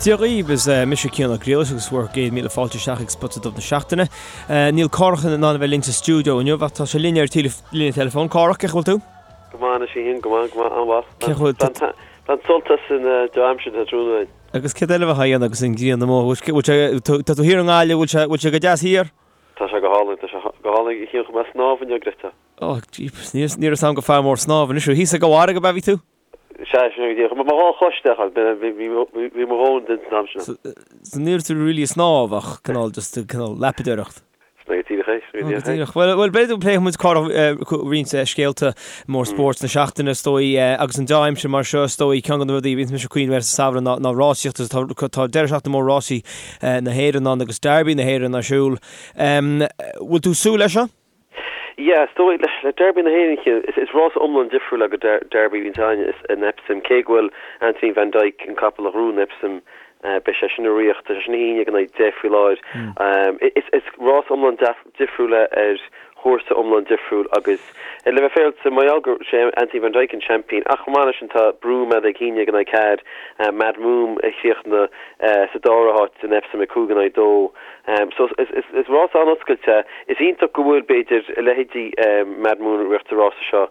Dia dhaoibh, is mise Cian Ó Griallais agus bhur gcéad míle fáilte isteach ag Spota Dubh na Seachtaine. Níl Cárthach in ann a bheith linn sa stiúideo inniu ach tá sé linn ar líne teileafóin. Cárthach, cén chaoi a bhfuil tú? Go maith anois a Chiain, go maith, go maith, an-mhaith. Cén chaoi a bhfuil. Bain sult as an dea-aimsir atá tráthnóna againn. Agus céard eile a bheifeá a dhéanamh agus an ghrian amuigh? Bhfuil sé, tá tú thiar i nGaillimh, bhfuil sé, bhfuil sé go deas thiar? Tá sé go hálainn, tá sé go hálainn a Chiain, chuaigh mé ag snámh inniu, Greta. Oh, jeepers, ní raibh 'fhios a'm gur fear mór snámha anois thú. Thíos ag an bhfarraige ab ea bhí tú? Sea, sin é go díreach. Mo dhá chois isteach ann, bhí mo dhóthain den san am sin. So ní raibh tú really ag snámh ach cineál just cineál lapadóireacht. Sin é go díreach é, sin é go díreach é. Díreach. Bhuel, bhuel, b'fhéidir go bpléifidh muid roinnt scéalta mór spóirt na seachtaine, is dóigh, agus an dea-aimsir mar seo, is dóigh, ceann de na rudaí a bhíonns mise ag cuimhneamh air sa samhradh ná, ná rásaíocht agus tá, tá deireadh seachtaine mór rásaí na hÉireann ann agus Derby na hÉireann ar siúl. Bhfuil tú ag súil leis seo? Yeah, is dóigh, le Derby na hÉireann, Cian, is rás iomlán difriúil go Derby a bhíonns againn in Epsom, cé go bhfuil Anthony Van Dyck, an capall a ghnóthaigh in Epsom, beidh sé sin ag ritheacht, tá sé sin 11 in aghaidh 10 faoi láthair. Is rás iomlán difriúil é ar chúrsa iomlán difriúil agus le bheith féaráilte, mar gheall gur sé Anthony Van Dyck an seaimpín ach chomh maith leis sin tá Broome ag 11 in aghaidh 4, Mad Moon a chríochnaigh sa dara háit in Epsom ag 5 in aghaidh 2. So is rás an-oscailte é. Is iontach go bhfuil, b'fhéidir, a leithéidí Mad Moon ag rith sa rása seo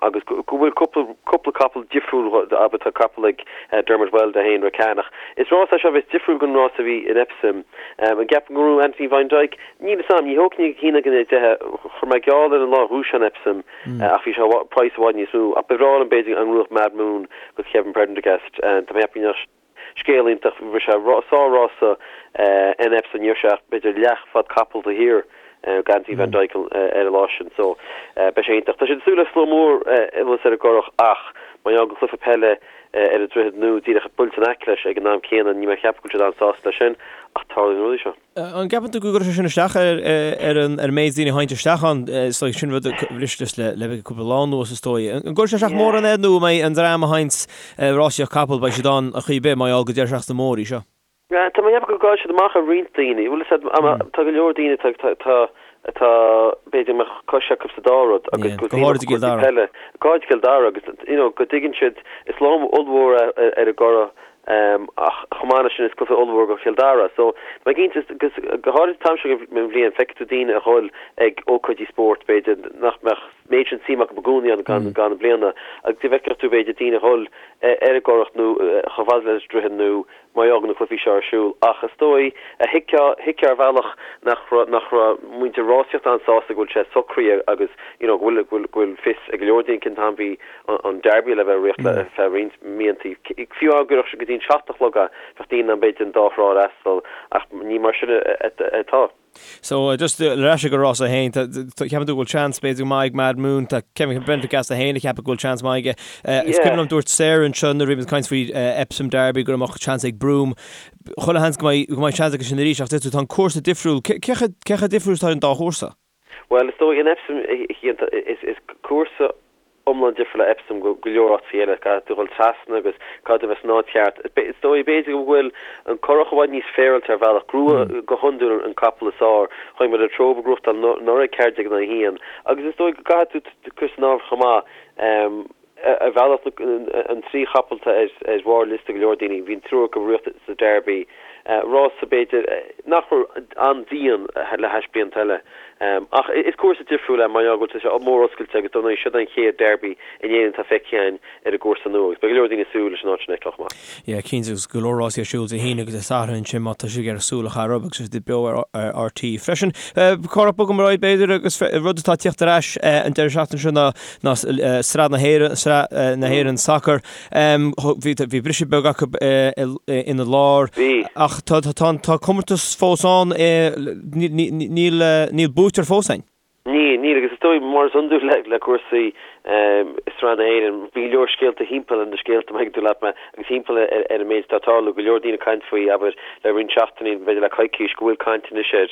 agus go bhfuil cúpla capall difriúil, abair tá capall ag Dermot Weld é féin, Rakan, ach is rás é seo a bheas difriúil den rás a bhí in Epsom. An gceapaim go ngnóthóidh Anthony Van Dyck? Níl 'fhios a'm, ní thógfainn ag 11 in aghaidh 10, chuir mé geall air an lá a ghnóthaigh sé in Epsom ach bhí sé praghas i bhfad níos mó. Ach ba bhreá liom b'fhéidir an ngnóthódh Mad Moon go Kevin Prendergast. Tá mé ag ceapadh go mbeadh Scéal iontach, rith sé sár-rása in Epsom, ní raibh sé ach b'fhéidir leathfhad capall taobh thiar d'Anthony Van Dyck ar an lá sin so beidh sé iontach. Tá siad ag súil le slua mór anuas ar an gCurrach ach mar gheall go cluiche peile ar an Droichead Nua díreach buailte in aice leis ag an am céanna níl mé ag ceapadh go bhfuil siad an-sásta leis sin ach tarlaíonn na rudaí seo. An gceapann tú go gcuirfidh sé sin isteach ar an méid daoine a théann isteach ann? Is dóigh, sin rud a bhris le le cúpla lá anuas, is dóigh. An gcuirfidh sé isteach mórán air nó an mbeidh an dream a théann ag rásaíocht capall, beidh siad ann ar chaoi ar bith mar gheall gur deireadh seachtaine mór í seo? Tá mé ag ceapadh go gcaillfidh siad amach ar roinnt daoine. Bhfuil fhios agat, tá go leor daoine atá atá b'fhéidir go mbeadh cois acu sa dá rud agus go háirid i gCill Dara. Go háirid i gCill Dara agus you know go dtuigeann siad is lá ollmhór é ar an gCurrach Ach chomh maith leis sin is cluiche ollmhór go Chill Dara. So, tá mé cinnte, go háirid an t-am seo den bhliain, feicfidh tú daoine a dhul ag ócáidí spóirt, b'fhéidir, nach mbeadh méid sin suim acu i gcónaí ann gan gan na bliana, agus go bhfeicfeadh tú, b'fhéidir, daoine a dhul ar an gCurrach nó chomh fada leis an Droichead nó mar gheall go na cluichí seo ar siúl. Ach is dóigh, thuigfeá, thuigfeá ar bhealach nach raibh, nach raibh muintir rásaíochta an-sásta go bhfuil sé socraithe agus, you know, go bhfuil, go bhfuil, go bhfuil fios ag go leor daoine cén t-am bhí an Derby le bheith ag rith le feadh roinnt míontaí. Fiú dá gcuirfeadh sé go dtí an 7 a chlog é, bheadh daoine in ann b'fhéidir an dá thrá a fhreastal, ach ní mar sin atá. So, just ar ais ag an rása féin, ceapann tú go bhfuil seans b'fhéidir go maith ag Mad Moon, tá Kevin Prendergast é féin ag ceapadh go bhfuil seans maith aige. Is cuimhin liom dúirt Sarah anseo nuair a bhí muid ag caint faoi Epsom Derby go mbeadh seans ag Broome. Chuile sheans go mbeidh seans aige sin arís ach deir tú tá an cúrsa difriúil. Cé chomh difriúil is atá an dá chúrsa? Bhuel, is dóigh, in Epsom, is cúrsa iomlán difriúil é Epsom go go leor áiteacha eile. Caithfidh tú dhul trasna agus caithfidh tú bheith san áit cheart. Is dóigh, b'fhéidir go bhfuil an Currach i bhfad níos féaráilte ar bhealach. Gnóthaíonn go hiondúil an capall is fearr. Chonaic muid Latrobe ag gnóthachtáil anuraidh 14 in aghaidh 1. Agus is dóigh go gcaithfidh tú cur san áireamh chomh maith. Ar bhealach, an trí chapall atá ar bharr liosta go leor daoine, bhí an triúr acu ag rith sa Derby, rása b'fhéidir nach raibh an-dian le hais blianta eile. Ach is cúrsa difriúil é mar gheall go bhfuil sé mór oscailte agus dar ndóigh siod an chéad Derby in Éirinn atá feicthe againn ar an gcúrsa nua agus beidh go leor daoine ag súil leis an áit sin a fheiceáil chomh maith. Yeah, cinnte agus go leor rásaí ar siúl Dé hAoine agus Dé Sathairn ansin má tá sibh ag iarraidh súil a chaitheamh orthu agus siad beo ar RTÉ freisin. Cárthach bogfaidh muid ar aghaidh b'fhéidir agus rud atá ag tíocht ar ais an deireadh seachtaine seo ná ná Sraith na hÉireann, Sraith na hÉireann Sacair. Bhí bhí briseadh beag acu ina lár. Bhí. Ach tá tá tá comórtas fós ann, níl níl buaiteoir fós ann. Níl, níl agus is dóigh mar is iondúil le le cúrsaí Sraith na hÉireann, bhí go leor scéalta thimpeall ar na scéalta, má thuigeann tú leat mé, agus thimpeall ar ar an méid atá ag tarlú, go leor daoine ag caint faoi, abair, le roinnt seachtainí, b'fhéidir le coicís, go bhfuil caint anois air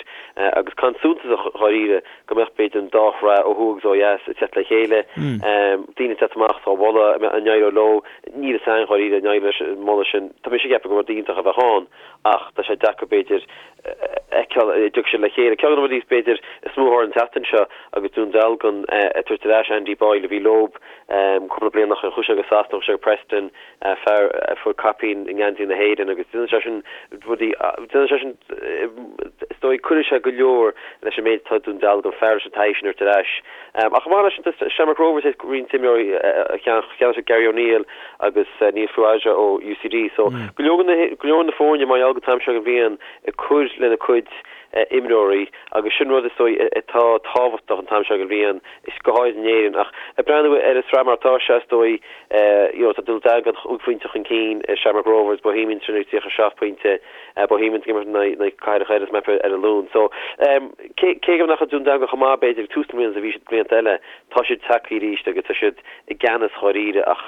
agus caint suntasach dháiríre go mbeadh b'fhéidir an dá shraith ó thuaidh agus ó dheas ag teacht le chéile, daoine ag teacht amach á mholadh, an n-éireoidh leo, níl fhios a'inn dháiríre an n-éireoidh leis an moladh sin. Tá mise ag ceapadh gur rud iontach a bheadh ann ach tá sé deacair b'fhéidir a fheiceáil an dtiocfaidh siad le chéile. Ceann de na rudaí b'fhéidir is mó a tharla an tseachtain seo agus Dún Dealgan ag tabhairt ar ais Andy Boyle a bhí leo. Cúpla bliain ó shin chuaigh sé go Sasana, chuaigh sé go Preston, fear a fuair caipín i ngeansaí na hÉireann agus déanann sé sin rudaí, déanann sé sin, is dóigh, cuirfidh sé go leor leis an méid atá ag Dún Dealgan, fear leis an taithí sin a thabhairt ar ais. Ach chomh maith leis sin, tá Shamrock Rovers ag roinnt imreoirí a cheannaigh siad Gary O'Neill agus Neil Farrugia ó UCD. So go leor go leor na foirne mar gheall go t-am seo den bhliain ag cur lena cuid imreoirí agus sin rud is dóigh atá tábhachtach an t-am seo den bhliain, is go háirid in Éirinn. Ach ag breathnú ar an sraith mar atá sé, is dóigh, you know, tá Dún Dealgan chúig phointe chun cinn ar Shamrock Rovers, Bohemians sin ag 37 pointe, Bohemians ag imirt in aghaidh Cathair an Choirr is mé ar an Luan. So, cé cé go nach raibh Dún Dealgan chomh maith b'fhéidir ag tús na bliana is a bhí siad blianta eile, tá siad tagtha arís agus tá siad i gceannas dháiríre. Ach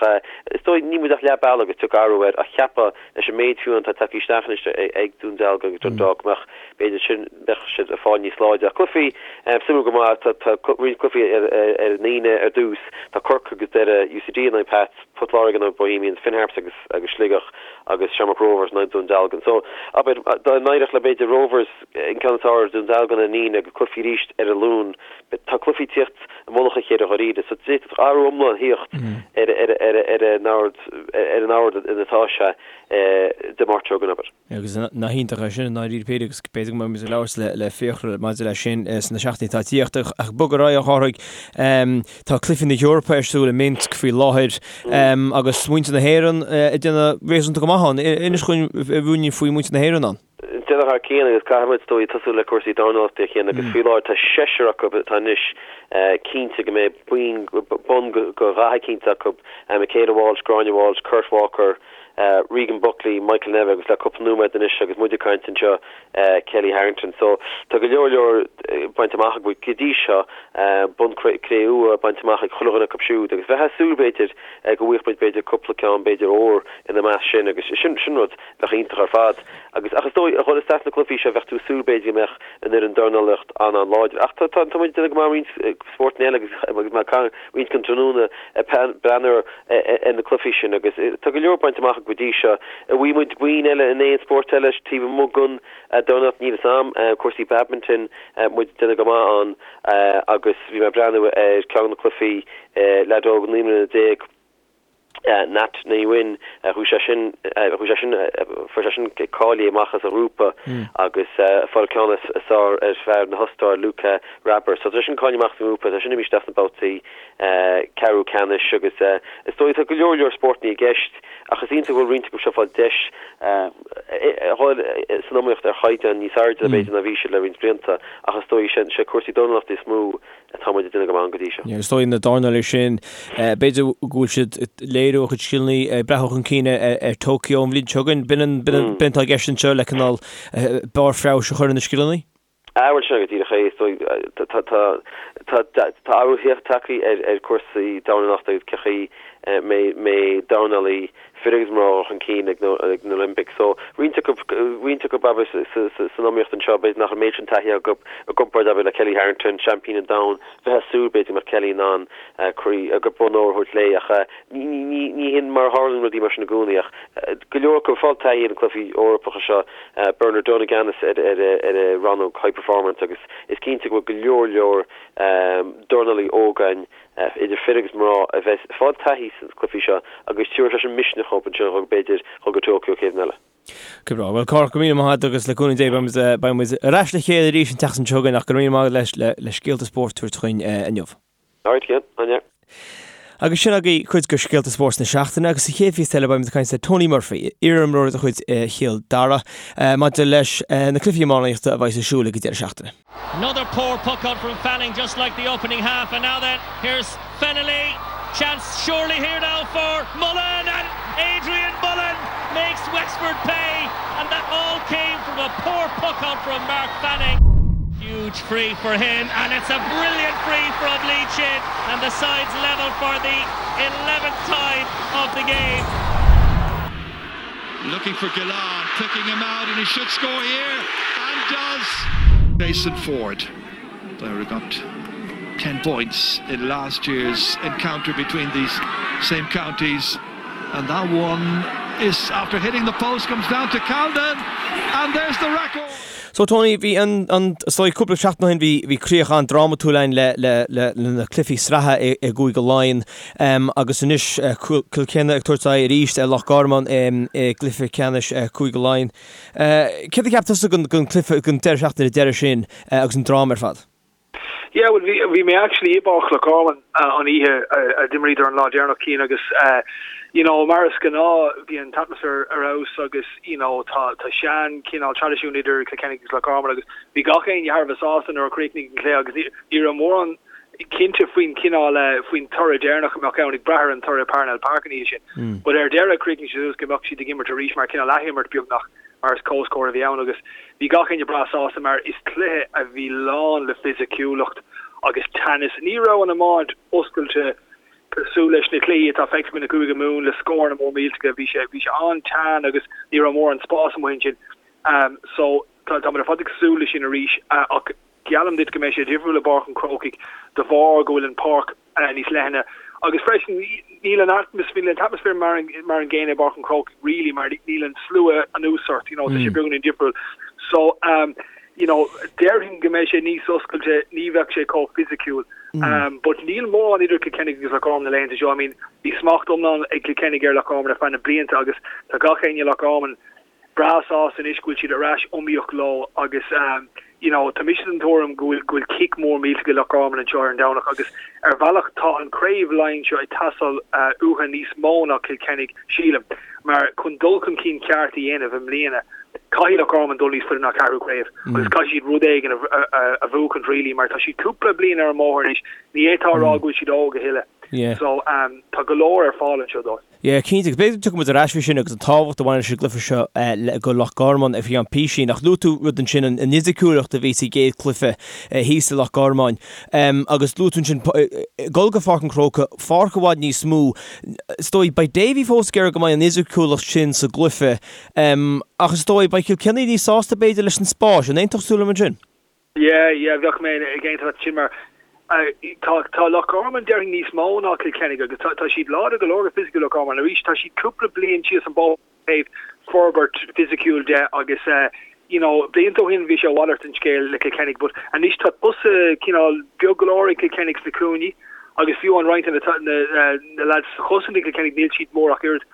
is dóigh, níl muid ach leath bealaigh agus tiocfaidh athrú air ach cheapfá leis an méid fiú atá tagtha isteach anois ag Dún Dealgan agus Dundalk go mbeadh, b'fhéidir sin, bheadh siad ag fáil níos láidre. Ach cluichí suimiúil go maith, tá roinnt cluichí ar an Aoine ar dtús. Tá Corcaigh agus Doire, UCD in aghaidh Pats, Port Láirge in aghaidh Bohemians, Finn Harps agus agus Sligeach agus Shamrock Rovers in aghaidh Dún Dealgan. So, abair, dá n-éireodh le b'fhéidir Rovers an ceann is fearr ar Dún Dealgan ar an Aoine agus cluichí arís ar an Luan, tá cluichí ag tíocht i mullach a chéile dháiríre. So d'fhéadfadh athrú iomlán thíocht ar ar an ord ar an ord ina atá sé Dé Máirt seo chugainn, abair. Agus nach iontach é sin i ndáiríre píre agus b'fhéidir go mbeidh muid ag labhairt le le Fiachra maidir leis sin sna seachtainí atá ag tíocht. Ach bog ar aghaidh a Chárthaigh, tá Cluichí na hEorpa ar siúl i Minsk faoi láthair agus muintir na hÉireann ag déanamh réasúnta go maith ann. Inis dhúinn ruainnín faoi mhuintir na hÉireann ann. Déanamh thar cionn agus caithfidh muid is dóigh tosú le cúrsaí dornálaíochta a Chian agus faoi láthair tá seisear acu atá anois cinnte go mbeidh bonn de dhath eicínt acu, Michaela Walsh, Gráinne Walsh, Kurt Walker, Regan Buckley, Michael Nevin agus le cúpla nóiméad anois agus muid ag caint anseo, Kellie Harrington. So tá go leor leor bainte amach acu go dtí seo, bonn cré-umha bainte amach ag chuile dhuine acu siúd agus bheifeá ag súil b'fhéidir go bhfaigheadh muid b'fhéidir cúpla ceann b'fhéidir óir ina measc sin agus sin rud Bheadh iontach ar fad. Agus, ach is dóigh, a dhul isteach sna cluichí seo, bheadh tú ag súil, b'fhéidir, go mbeadh an fhoireann dornálaíocht an-an-láidir. Ach tá, tá, tá muid ag déanamh go maith i roinnt spórtanna eile agus, agus mé ag caint roinnt den tráthnóna ag breathnú ar na cluichí sin agus tá go leor bainte amach go dtí seo. An bhfaighidh muid boinn eile in aon spórt eile taobh amuigh den dornálaíocht? Níl fhios a'm. Cúrsaí badminton, muid ag déanamh go maith ann agus bhí mé ag breathnú ar ceann de na cluichí leaid óg 19 mbliana, Nhat Nguyen, chuaigh sé sin, chuaigh sé sin, fuair sé sin cáilithe amach as a ghrúpa agus fáil ceann is fearr ar fear na hOstaire, Luka Wraber. So tá sé sin cáilithe amach as an ngrúpa, tá sin imithe isteach sna babhtaí ceathrú ceannais agus is dóigh tá go leor leor spórtanna i gceist ach is iontach go bhfuil roinnt acu seo ag fáil deis a dhul san iomaíocht ar chaighdeán níos airde b'fhéidir ná bhí siad le roinnt blianta ach is dóigh sé cúrsaí dornálaíochta is mó atá muid ag déanamh go maith ann go dtí seo. Is dóigh na dornálaithe sin, b'fhéidir go bhfuil siad ag léiriú a gcuid scileanna ag breathnú chun cinn ar Tokyo an bhliain seo chugainn. B'in an b'in atá i gceist anseo le cineál barr feabhais a chur ar na scileanna? Ah bhuel sin go díreach é. Is dóigh tá tá tá tá athrú tagtha ar ar cúrsaí dornálaíochta agus cén chaoi a mbeidh dornálaí fir agus mná chun cinn ag na Olympics. So, roinnt acu, roinnt acu abair san iomaíocht anseo, b'fhéidir nach an méid sin taithí acu i gcomparáid abair le Kellie Harrington, seaimpín an domhain, bheifeá ag súil b'fhéidir go mbeadh Kellie in ann croí, bonn óir a thabhairt léi ach ní, ní, ní hin mar a tharlaíonn rudaí mar sin i gcónaí ach go leor acu ag fáil taithí ar na cluichí Eorpacha seo, Bernard Dunne i gceannas ar ar ar an rannóg high performance agus is cinnte go bhfuil go leor leor dornálaí óga againn idir fir agus mná, a bheas ag fáil taithí sna cluichí seo agus tabharfaidh sé sin misneach dhóibh ansin dhul b'fhéidir dhul go Tokyo chéad bhliain eile. Go breá. Bhuel, Cárthach, go raibh míle maith agat agus le cúnamh Dé beidh muid, beidh muid ar ais le chéile arís an tseachtain seo chugainn ach go raibh míle maith agat le, le scéalta spóirt a thabhairt chugainn inniu. Alright, Cian. Áine. Agus sin agaibh cuid de scéalta spóirt na seachtaine agus sa chéad phíosa eile beidh muid ag caint le Tony Murphy, iarimreoir de chuid Chill Dara, maidir leis na cluichí iománaíochta a bheidh ar siúl ag an deireadh seachtaine. Another poor puck out from Fanning just like the opening half and now then here's Fennelly chance surely here now for Mullen and Adrian Mullen makes Wexford pay and that all came from a poor puck out from Mark Fanning. Huge free for him and it's a brilliant free from Lee Chin and the sides level for the 11th time of the game. Looking for Gillane, picking him out and he should score here and does. Jason Forde, player who got 10 points in last year's encounter between these same counties and that one is after hitting the post comes down to Calden and there's the record. So Tony, bhí an, an, is dóigh cúpla seachtain ó shin bhí, bhí críoch an-drámatúil ann le, le, le, le na cluichí sraithe i, i gCúige Laighean um, agus anois uh, Cill Chainnigh ag tabhairt aghaidh arís ar Loch Garman um, i gcluiche ceannais uh, Cúige Laighean. Uh, céard a cheap tusa den, den cluiche, den deireadh seachtaine deireadh sin uh, agus an dráma ar fad? Yeah, well, bhí, bhí mé actually i bPáirc Loch Garman an oíche a d'imríodar an lá deireanach Cian agus you know, mar is gnáth bhí an t-atmaisféar ar fheabhas agus you know, tá, tá sean cineál traidisiún idir Cill Chainnigh agus Loch Garman agus bhí gach éinne thar a bheith sásta nuair a chríochnaigh an cluiche agus ní, ní raibh mórán cinnte faoin chineál, faoin toradh deireanach a mbeadh ann ag brath ar an toradh i Parnell Park an oíche sin. But ar deireadh chríochnaigh sé suas go mbeadh siad ag imirt arís mar cineál athimirt beagnach. mar is comhscór a bhí ann agus bhí gach éinne breá sásta mar is cluiche a bhí lán le fisiciúlacht agus teannas. Ní raibh an iomáint oscailte cosúil leis na cluichí atá feicthe againn i gCúige Mumhan le scóranna mór millteacha. Bhí sé bhí sé an-teann agus ní raibh mórán spás amuigh ansin. So tá táimid ar fad ag súil leis sin arís ach geallaim duit go mbeidh sé difriúil i bPáirc an Chrócaigh de bharr go bhfuil an pháirc níos leithne agus freisin níl an atmaisféar, níl an t-atmaisféar mar an mar an gcéanna i bPáirc an Chrócaigh really mar níl an slua anuas ort, you know, tá sé beagáinín difriúil. So um, you know, déarfainn go mbeidh sé níos oscailte, ní bheadh sé chomh fisiciúil. Um, but níl mórán idir Cill Chainnigh agus Loch Garman na laethanta seo. I mean, bhí smacht iomlán ag Cill Chainnigh ar Loch Garman ar feadh na blianta agus tá gach éinne i Loch Garman breá sásta anois go bhfuil siad ar ais iomaíoch leo agus you know tá mise den tuairim go bhfuil go bhfuil cic mór millteach ag Loch Garman anseo ar an Domhnach agus ar bhealach tá an craobh Laighean seo ag teastáil uathu níos mó ná Cill Chainnigh sílim mar chun dul chun cinn ceart a dhéanamh i mbliana caithfidh Loch Garman dul níos faide ná ceathrú craobh agus caithfidh siad rud éigin a, a, a bhuachaint really mar tá siad cúpla bliain ar an mbóthar anois ní fhéadfá a rá go bhfuil siad óg a thuilleadh so um, tá go leor ar fáil anseo dóibh. Yeah, cinnte, agus b'fhéidir go dtiocfaidh muid ar ais faoi sin agus an tábhacht a bhaineann leis an gcluiche seo le go Loch Garman ar feadh písín. Ach luaigh tú rud ansin, an fhisiciúlacht a bhí sa gcéad chluiche thíos i Loch Garman. Agus luaigh tú ansin dul go Pháirc an Chrócaigh, pháirc i bhfad níos mó. Is dóigh, beidh Davy fós ag iarraidh go mbeidh an fhisiciúlacht sin sa gcluiche. Ach is dóigh, beidh Cill Chainnigh níos sásta b'fhéidir leis an spás. An aontódh tú liom ansin? Yeah, yeah, bheadh mé ag aontú leat sin mar tá tá Loch Garman déarfainn níos mó ná Cill Chainnigh agus tá tá siad láidir go leor go fisiciúil Loch Garman arís tá siad cúpla bliain síos an bóthar ó thaobh forbairt fisiciúil de agus you know blianta ó shin bhí sé a mhalairt den scéal le Cill Chainnigh but anois tá tosaithe cineál beag go leor ag Cill Chainnigh sna cúinní agus fiú an roinnt de na na lads sa chosaint ag Cill Chainnigh níl siad mór ach oiread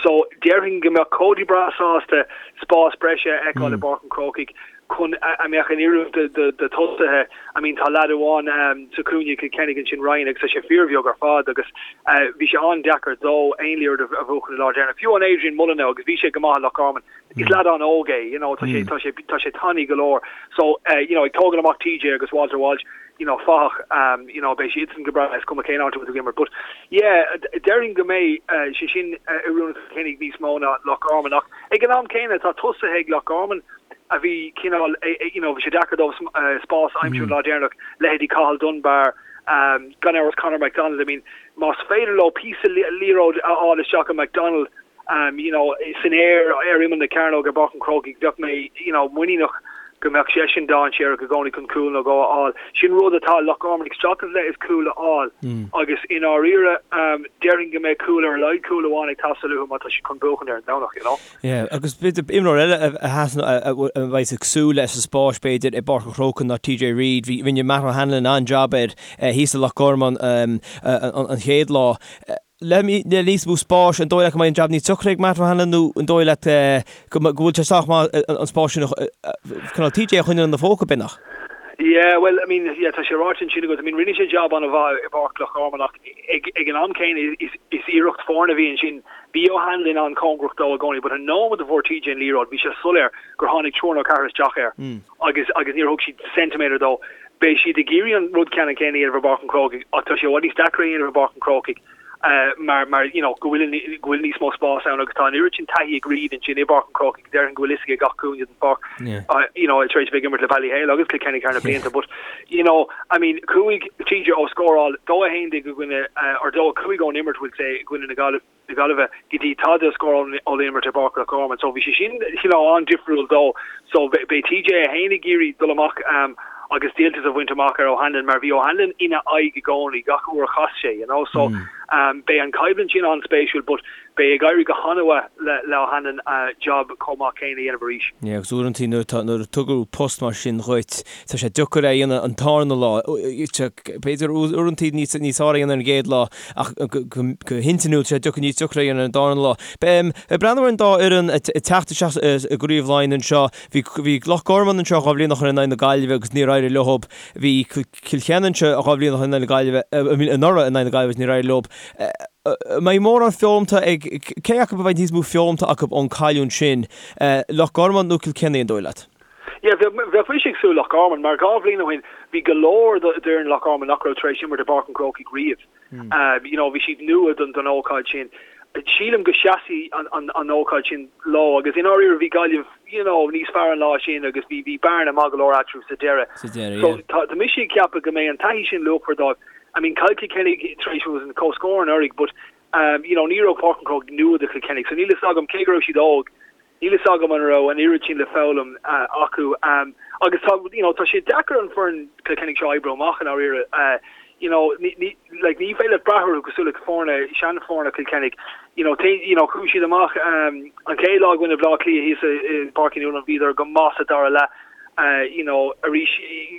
so déarfainn go mbeadh Cody breá sásta spás breise a fheiceáil i bPáirc an Chrócaigh chun a mbeadh in oiriúint do tosaithe. I mean tá leaid amháin sa chúinne ag Cill Chainnigh ansin, Ryan, agus tá sé fíorbheag ar fad agus bhí sé an-deacair dó aon liathróid a bhuachan an lá deireanach. Fiú an Adrian Mullen now agus bhí sé go maith i Loch Garman, is leaid an-óg é, you know, tá sé, tá sé, tá sé tanaí go leor. So, you know, ag tógáil amach TJ agus Walter Walsh, you know, fathach, you know, beidh siadsan go breá, is cuma cén áit a bhfuil tú ag imirt. But, yeah, déarfainn go mbeidh sé sin oiriúnach do Chill Chainnigh níos mó ná Loch Garman ach ag an am céanna tá tosaithe ag Loch Garman a bhí cineál, you know, bhí sé deacair dóibh spás a aimsiú an lá deireanach, leithéidí Cathal Dunbar, gan amhras Conor McDonald, I mean, más féidir leo píosa liathróid a fháil isteach i McDonald, you know, san aer ar imeall na cearnóige i bPáirc an Chrócaigh, bheadh mé, you know, muiníneach go mbeadh seisean dainséarach i gcónaí chun cúl nó dhó a fháil. Sin rud atá Loch Garman ag streachailt le is cúl a fháil agus i ndáiríre, déarfainn go mbeidh cúl ar a laghad cúl amháin ag teastáil uathu má tá siad chun buachan ar an Domhnach, you know. Yeah, agus b'fhéidir imreoir eile a sheasann, a bheidh ag súil leis sa spás b'fhéidir i bPáirc an Chrócaigh ná TJ Reid. Bhí, rinne Matt O'Hanlon an-jab air thíos i Loch Garman an chéad lá. Le níos mó spáis, an dóigh leat go mbeidh an jab níos deacra ag Matt O'Hanlon nó an dóigh leat go bhfuil sé sách maith an spás sin cineál TJ a choinneáil ina phóca, b'fhéidir? Yeah, well, I mean, yeah, tá sé ráite ansin agat. I mean, rinne sé jab an-mhaith i bPáirc Loch Garman ach ag ag an am céanna is is iarracht foirne a bhí ansin. Bhí O'Hanlon an-chóngarach dó i gcónaí but an nóiméad a fuair TJ an liathróid bhí sé soiléir gur tháinig triúr nó ceathrar isteach air agus agus níor thug siad ceintiméadar dó. Beidh siad ag iarraidh an rud ceannann céanna a dhéanamh i bPáirc an Chrócaigh ach tá sé i bhfad níos deacra a dhéanamh i bPáirc an Chrócaigh mar mar you know go bhfuil go bhfuil níos mó spás ann agus tá an oiread sin taithí ag Reid ansin i bPáirc an Chrócaigh déarfainn go bhfuil fhios aige gach cúinne den pháirc you know tar éis a bheith ag imirt le Ballyhale agus Cill Chainnigh thar na blianta but you know I mean chuaigh TJ ó scóráil 2-11 i gcoinne or 2-5 ón imirt we'll say i gcoinne na Gaillimhe na Gaillimhe go dtí tada a scóráil ón imirt i bPáirc Loch Garman so bhí sé sin you know an-difriúil dó so beidh TJ é féin ag iarraidh dul amach um, agus díoltas a bhaint amach ar O'Hanlon mar bhí O'Hanlon ina aghaidh i gcónaí gach uair a chas sé you know so um, beidh an coimhlint sin an-spéisiúil but. Beidh ag éirí go han-mhaith le le O'Hanlon job chomh maith céanna a dhéanamh arís. Yeah, agus uaireantaí nuair atá, nuair a tugadh post mar sin dhuit, tá sé deacair é a dhéanamh an tarna lá. B'fhéidir uaireantaí níos, níos fearr a dhéanamh ar an gcéad lá ach go, go, go hintinniúil tá sé deacair, níos deacra a dhéanamh ar an darna lá. Ag breathnú ar an dá fhoireann ag teacht isteach i gCraobh Laighean anseo, bhí, bhí Loch Garman anseo 2 bhliain ó shin in aghaidh na Gaillimhe agus níor éirigh leo. Bhí Cill Chainnigh anseo 2 bhliain ó shin in aghaidh na Gaillimhe, anuraidh in aghaidh na Gaillimhe agus níor éirigh leo. An mbeidh mórán foghlamtha ag, cé acu a bheidh níos mó foghlamtha acu ón cailliúint sin, Loch Garman nó Cill Chainnigh, an dóigh leat? Yeah, bheadh, bheadh mise ag súil Loch Garman, mar 2 bhliain ó shin bhí go leor d'fhoireann Loch Garman nach raibh tar éis imirt i bPáirc an Chrócaigh riamh. You know, bhí siad nua don, don ócáid sin. Sílim go seasfaidh an, an, an ócáid sin leo agus i ndáiríre bhí Gaillimh, you know, níos fearr an lá sin agus bhí, bhí bearna maith go leor eatarthu sa deireadh. Sa deireadh, So yeah. tá, tá mise ag ceapadh go mbeidh an taithí sin luachmhar dóibh. I mean, chaill Cill Chainnigh tar éis an comhscór anuraidh but, um, you know, ní raibh Páirc an Chrócaigh nua do Chill Chainnigh so níl fhios agam cé go raibh siad óg, Níl fhios agam an raibh an oiread sin le foghlaim acu agus tá, you know, tá sé deacair an foireann Cill Chainnigh seo a oibriú amach i ndáiríre. You know, ní, ní, like, ní féidir leat brath orthu cosúil le foirne, seanfhoirne Chill Chainnigh. You know, té, you know, chuaigh siad amach an chéad lá i gcoinne Bhaile Átha Cliath thíos i bPáirc Uí Nualláin, bhíodar go maith sa dara leath. You know, arís,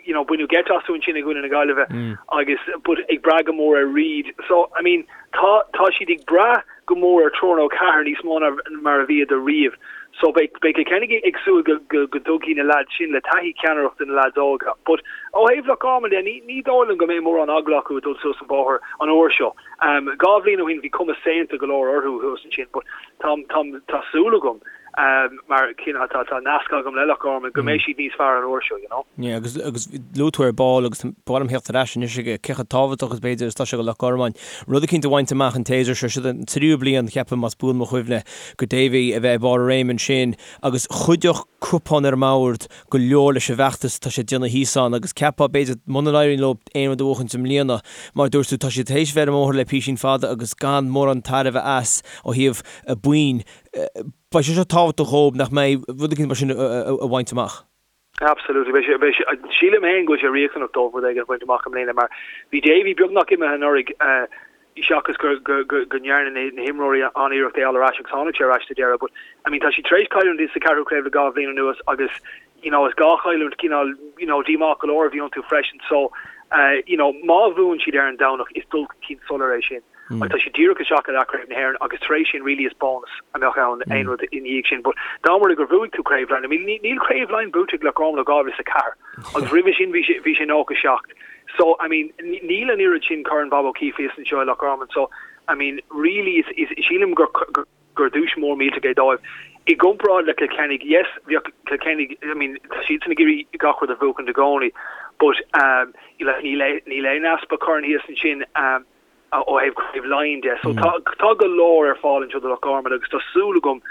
you know, baineadh geit astu ansin i gcoinne na Gaillimhe agus, but ag brath go mór ar Reid. So, I mean, tá, tá siad ag brath go mór ar triúr nó ceathrar níos mó ná mar a bhíodar riamh. So beidh beidh Cill Chainnigh ag súil go go go dtugfaidh na leaids sin le taithí ceannaireacht do na leaids óga. But ó thaobh Loch Garman de, ní ní dóigh liom go mbeidh mórán eagla acu ag dul suas an bóthar an uair seo. Um, 2 bhliain ó shin bhí cuma saonta go leor orthu thuas ansin, but tá tá tá súil agam um, mar cineál tá tá nasc agam le Loch Garman go mbeidh siad níos fearr an uair seo, you know. Yeah, agus agus luaigh tú ar ball agus ba mhaith liom theacht ar ais anois ag cé chomh tábhachtach is b'fhéidir is atá sé do Loch Garman rud eicínt a bhaint amach an tséasúr seo, siod an tríú bliain, ceapaim, más buan mo chuimhne, do Davy a bheith ag barr a réime ansin agus chuideodh cupán ar an mbord go leor leis an bhfeachtas atá sé ag déanamh thíos ann agus cheapfá b'fhéidir muna n-éiríonn leo aon rud a bhuachaint i mbliana, mar a dúirt tú, tá siad tar éis bheith ar an mbóthar le písín fada agus gan mórán tairbhe as ó thaobh boinn. Beidh sé seo tábhachtach dhóibh nach mbeidh rud éicint mar sin a bhaint amach. Absolutely. Beidh sé, beidh sé, sílim féin go bhfuil sé riachtanach dóibh rud éigin a bhaint amach i mbliana mar bhí Davy beagnach imithe anuraidh seachas go, go, go, go ndearna na, na himreoirí an-iarracht é a fháil ar ais agus tháinig sé ar ais sa deireadh but I mean tá siad tar éis cailliúint sa ceathrú craobh le 2 bhliain anuas agus you know is 2 chailliúint cineál you know díomách go leor a bhí iontu freisin so you know má bhuann siad ar an Domhnach is dul chun cinn soiléir é sin. Agus tá siad díreach isteach i leathchraobh na hÉireann agus tar éis sin really is bónas a mbeadh ann aon rud i ndiaidh sin. But dá mba rud é gur bhuaigh tú Craobh Laighean, I mean níl Craobh Laighean buaite ag Loch Garman ó 2004 agus roimhe sin bhí sé bhí sé 97. So I mean níl an oiread sin Corn Bob O'Keeffe thíos anseo i Loch Garman so I mean really is is sílim gur gur duais mór millteach é dóibh. I gcomparáid le Cill Chainnigh, yes, bheadh Cill Chainnigh, I mean, tá siadsan ag iarraidh gach rud a bhuachaint i gcónaí, but um, like, níl níl aon easpa corn thíos ansin um, ó thaobh Craobh Laighean de. So tá tá go leor ar fáil anseo do Loch Garman agus tá súil agam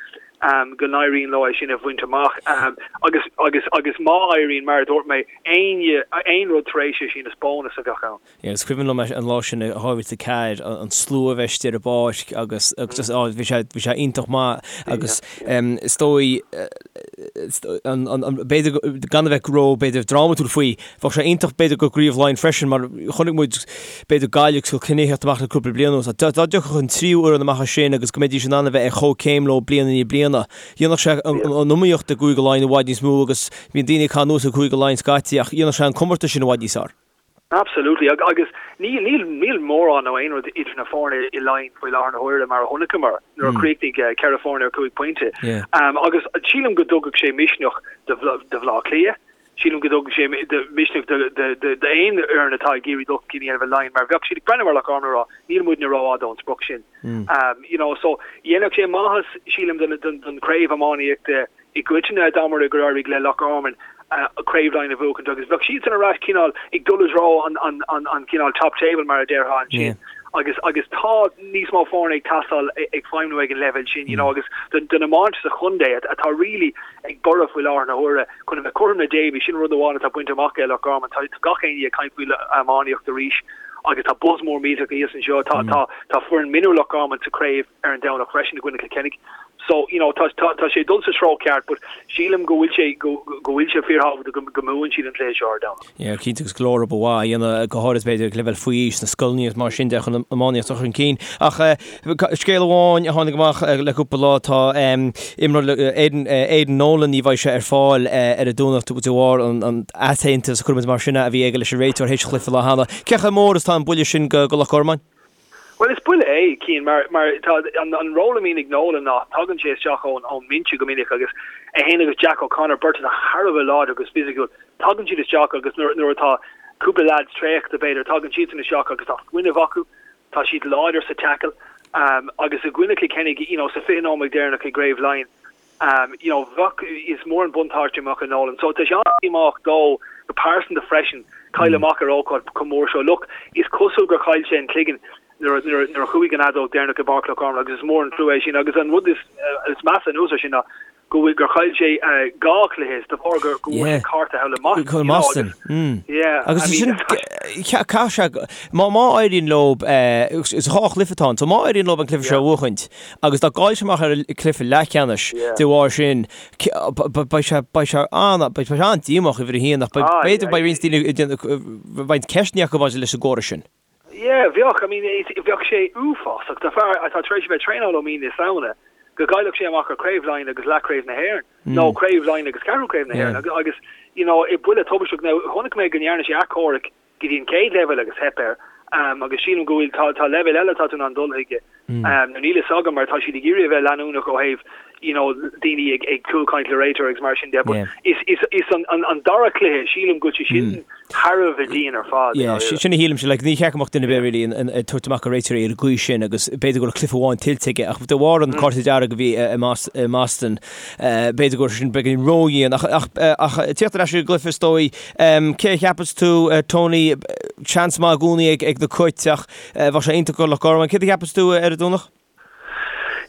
um, go n-éiríonn leo é sin a bhaint amach. Um, agus agus agus má éiríonn, mar a dúirt mé, aon aon rud tar éis é sin is bónas a bheadh ann. Is cuimhin liom an lá sin i 2004, an slua a bheith istigh ar an bpáirc agus just á bhí sé bhí sé iontach maith agus is dóigh b'fhéidir gan a bheith ró b'fhéidir drámatúil faoi, bheadh sé iontach b'fhéidir do chraobh Laighean freisin mar chonaic muid b'fhéidir Gaillimh agus Cill Chainnigh ag teacht amach le cúpla bliain anuas. Dá dtiocfadh an tríú fhoireann amach as sin agus go mbeidís in ann a bheith ar chomhchéim leo bliain i ndiaidh bliana, dhéanfadh sé an iomaíocht i gCúige Laighean i bhfad níos mó agus bíonn daoine ag caitheamh anuas ar Chúige Laighean scaití ach dhéanfadh sé an comórtas sin i bhfad níos fearr. Absolutely. Agus níl, níl, níl mórán nó aon rud idir na foirne i Laighin faoi láthair na huaire mar a chonaiceamar nuair a chríochnaigh 4 foirne ar 5 pointe. Agus sílim go dtugfadh sé misneach do Bhaile Átha Cliath, sílim go dtugfadh sé misneach d'aon fhoireann atá ag iarraidh dul chun cinn a dhéanamh i Laighin mar bheadh siad ag breathnú ar Loch Garman ag rá níl muidne rófhada ón sprioc sin. You know, so dhéanfadh sé maitheas sílim don chraobh iománaíochta i gcoitinne dá mba rud é gur éirigh le Loch Garman Craobh Laighean a bhuachaint agus bheadh siadsan ar ais cineál ag dul i dtreo an cineál top table mar a déarfá ansin agus agus tá níos mó foirne ag teastáil ag feidhmiú ag an leibhéal sin you know agus don don iomáint sa chontae atá really ag borradh faoi láthair na huaire chun a bheith cothrom le Davy sin rud amháin atá bainte amach ag Loch Garman tá gach éinne ag caint faoi iománaíocht arís agus tá buzz mór millteach thíos anseo tá tá tá foireann mionúir Loch Garman sa chraobh ar an Domhnach freisin i gcoinne Cill Chainnigh. So, you know, tá, tá, tá sé ag dul sa treo ceart but sílim go bhfuil sé, go, go. go bhfuil sé fíorthábhachtach go go mbuann siad an cluiche seo ar an Domhnach. Yeah, cinnte agus go leor obair mhaith á dhéanamh go háirid b'fhéidir ag leibhéal faoi aois sna scoileanna agus mar sin de chun an iománaíocht a chur chun cinn. Ach scéal amháin a tháinig amach le cúpla lá tá imreoir Aidan Aidan Nolan ní bheidh sé ar fáil ar an Domhnach de bharr an an easaontas a chuirfimid mar sin é a bhí aige leis an réiteoir théis chluiche lá cheana. Cé chomh mór is atá an buille sin go go Loch Garman? Bhuel, is buille é, Cian, mar mar tá an an ról a bhíonn ag Nolan ná tagann sé isteach ón ón mbinse go minic agus é féin agus Jack O'Connor, beirt atá thar a bheith láidir agus fisiciúil, tagann siad isteach agus nuair nuair atá cúpla leaids traochta b'fhéidir, tagann siadsan isteach agus tá fuinneamh acu, tá siad láidir sa tackle um, agus i gcoinne Kilkenny, you know, sa 20 nóiméad deireanach i gCraobh Laighean, Um, you know, bheadh, is mór an buntáiste a mbeadh ag Nolan. So tá sé an-díomách dó go pearsanta freisin cailleadh amach ar ócáid chomh mór seo. Look, is cosúil gur chaill sé an cloigeann nuair, nuair, nuair a chuaigh an fheadóg deireanach i bPáirc Loch Garman agus is mór an trua é sin. Agus an rud is, uh, is measa anuas air sin ná go bhfuil gur chaill sé uh, dhá chluiche is de bharr gur go bhfuair sé cárta thall i Mboston. You know, agus, mm. yeah, agus I mean, sin caithfidh sé má má éiríonn leo is dhá chluiche atá ann, so má éiríonn leo an cluiche seo a bhuachaint, Agus dá gcaillfidh sé amach ar an cluiche leathcheannais de bharr sin, beidh sé beidh sé an beidh sé an-díomách uimhir a haon ach b'fhéidir beidh roinnt daoine ag déanamh roinnt ceisteanna acu maidir leis an gcóras sin. Yeah, bheadh, I mean, bheadh sé uafásach do fear atá tar éis a bheith ag traenáil ó mí na Samhna go gcaillfeadh sé amach ar Chraobh Laighean agus leathchraobh na hÉireann nó Craobh Laighean agus ceathrú craobh na hÉireann agus you know, buille tubaisteach. Now, chonaic mé go ndearna sé achomharc go dtí an chéad leibhéal agus theip air agus sílim go bhfuil tá tá leibhéal eile atá tú in ann dul chuige nó níl fhios agam mar tá siad ag iarraidh a bheith leanúnach ó thaobh you know daoine ag ag cúlchaint le réiteoir agus mar sin de but is is is an an an dara cluiche sílim go bhfuil sé sin thar a bheith dian ar fad. Yeah, sin a shílimse like ní cheart go mbeadh duine ar bith really ag tabhairt amach ar réiteoirí ar an gcaoi sin agus b'fhéidir go raibh cluiche amháin tuillte aige ach de bharr an cárta dearg a bhí i mBoston b'fhéidir go raibh sin beagáinín ródhian ach ach ach tíocht ar ais ar an gcluiche is dóigh Cé a cheapas tú, Tony? Seans maith i gcónaí ag na Cait ach bheadh sé iontach do Loch Garman. Céard a cheapas tú ar an Domhnach?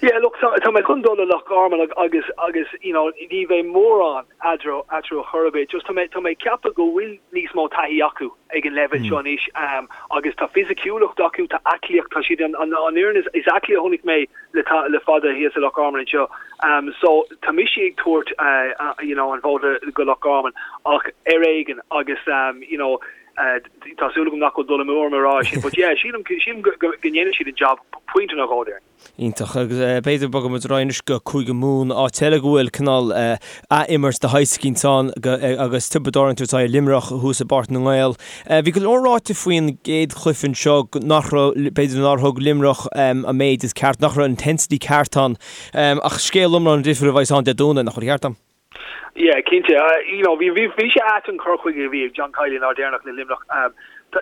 Yeah, look, tá, tá mé chun dul le Loch Garman agus, agus, you know, ní bheidh mórán eatarthu, eatarthu chor ar bith. Just tá mé, tá mé ag ceapadh go bhfuil níos mó taithí acu ag an leibhéal seo anois um, agus tá fisiciúlacht acu, tá aclaíocht, tá siad an, an, an fhoireann is, is aclaí a chonaic mé le, le fada thíos i Loch Garman anseo. Um, so tá mise ag tabhairt uh, uh, you know, an vóta go Loch Garman ach ar éigean agus um, you know, uh, tá súil agam nach bhfuil dul amú orm a rá sin, but yeah, sílim, sílim go, go, go ndéanfaidh siad an job pointe nó dhó déarfainn. Iontach. Agus uh, b'fhéidir bogfaidh muid ar aghaidh anois go Cúige Mumhan, áit eile go bhfuil cineál uh, athimirt de shaghas eicínt ann agus Tiobraid Árann ag tabhairt aghaidh ar Luimneach thuas i bPáirc na nGael. Bhí go leor ráite faoin gcéad chluiche anseo nach raibh, b'fhéidir nár thug Luimneach an méid is ceart, nach raibh an intensity ceart ann. Ach scéal iomlán difriúil a bheas ann Dé Domhnaigh, nach bhfuil ceart agam? Yeah, cinnte. You know, bhí, bhí, bhí sé ait an cur chuige a bhí ag John Kiely an lá deireanach le Luimneach.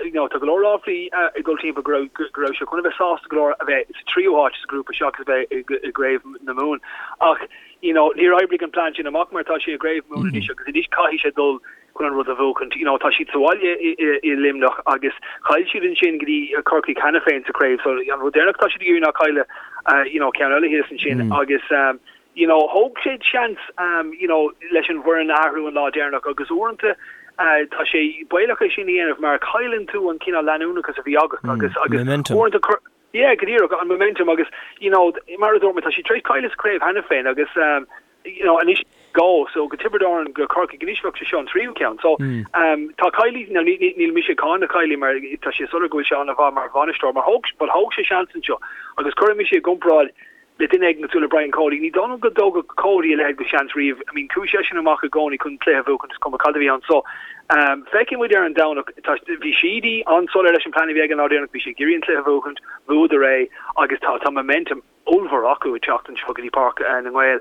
You know, tá go leor ráflaí ag dul timpeall go raibh, go raibh sé chun a bheith sásta go leor a bheith sa tríú háit sa ghrúpa seachas a bheith i, i gCraobh na Mumhan. Ach, you know, níor oibrigh an plean sin amach mar tá sé i gCraobh Mumhan anois agus anois caithfidh sé dul chun an rud a bhuachaint. You know, tá siad sa bhaile i Luimneach agus chaill siad ansin go dtí Corcaigh cheana féin sa chraobh so an rud deireanach atá siad ag iarraidh ná cailleadh you know, ceann eile thíos ansin agus um, you know, thóg sé seans um, you know, leis an bhfoireann a athrú an lá deireanach agus uaireanta uh, tá sé baolach é sin a dhéanamh mar cailleann tú an cineál leanúnachas a bhí agat agus agus uaireanta Yeah, go díreach, an momentum agus, you know, mar a dúirt mé, tá siad tar éis cailleadh sa chraobh cheana féin agus um, you know, anois go, so go Tiobraid Árann, go Corcaigh, anois bheadh sé seo an tríú ceann. So, um, tá Kiely, now, ní, ní, níl mise ag cáineadh Kiely mar tá sé soiléir go bhfuil sé an-mhaith mar bhainisteoir, mar thóg, but thóg sé seans anseo agus cuirfidh mise i gcomparáid le duine éigin cosúil le Brian Cody. Ní dóigh liom go dtógfadh Cody a leithéid de sheans riamh. I mean, chuaigh seisean amach i gcónaí chun cluiche a bhuachan, is cuma cad a bhí ann. So, um, feicfidh muid ar an Domhnach, tá, bhí Sheedy an-soiléir leis an plean a bhí aige an lá deireanach, bhí sé ag iarraidh an cluiche a bhuachaint, bhuadar é agus tá, tá momentum ollmhór acu ag teacht anseo go dtí Páirc na nGael.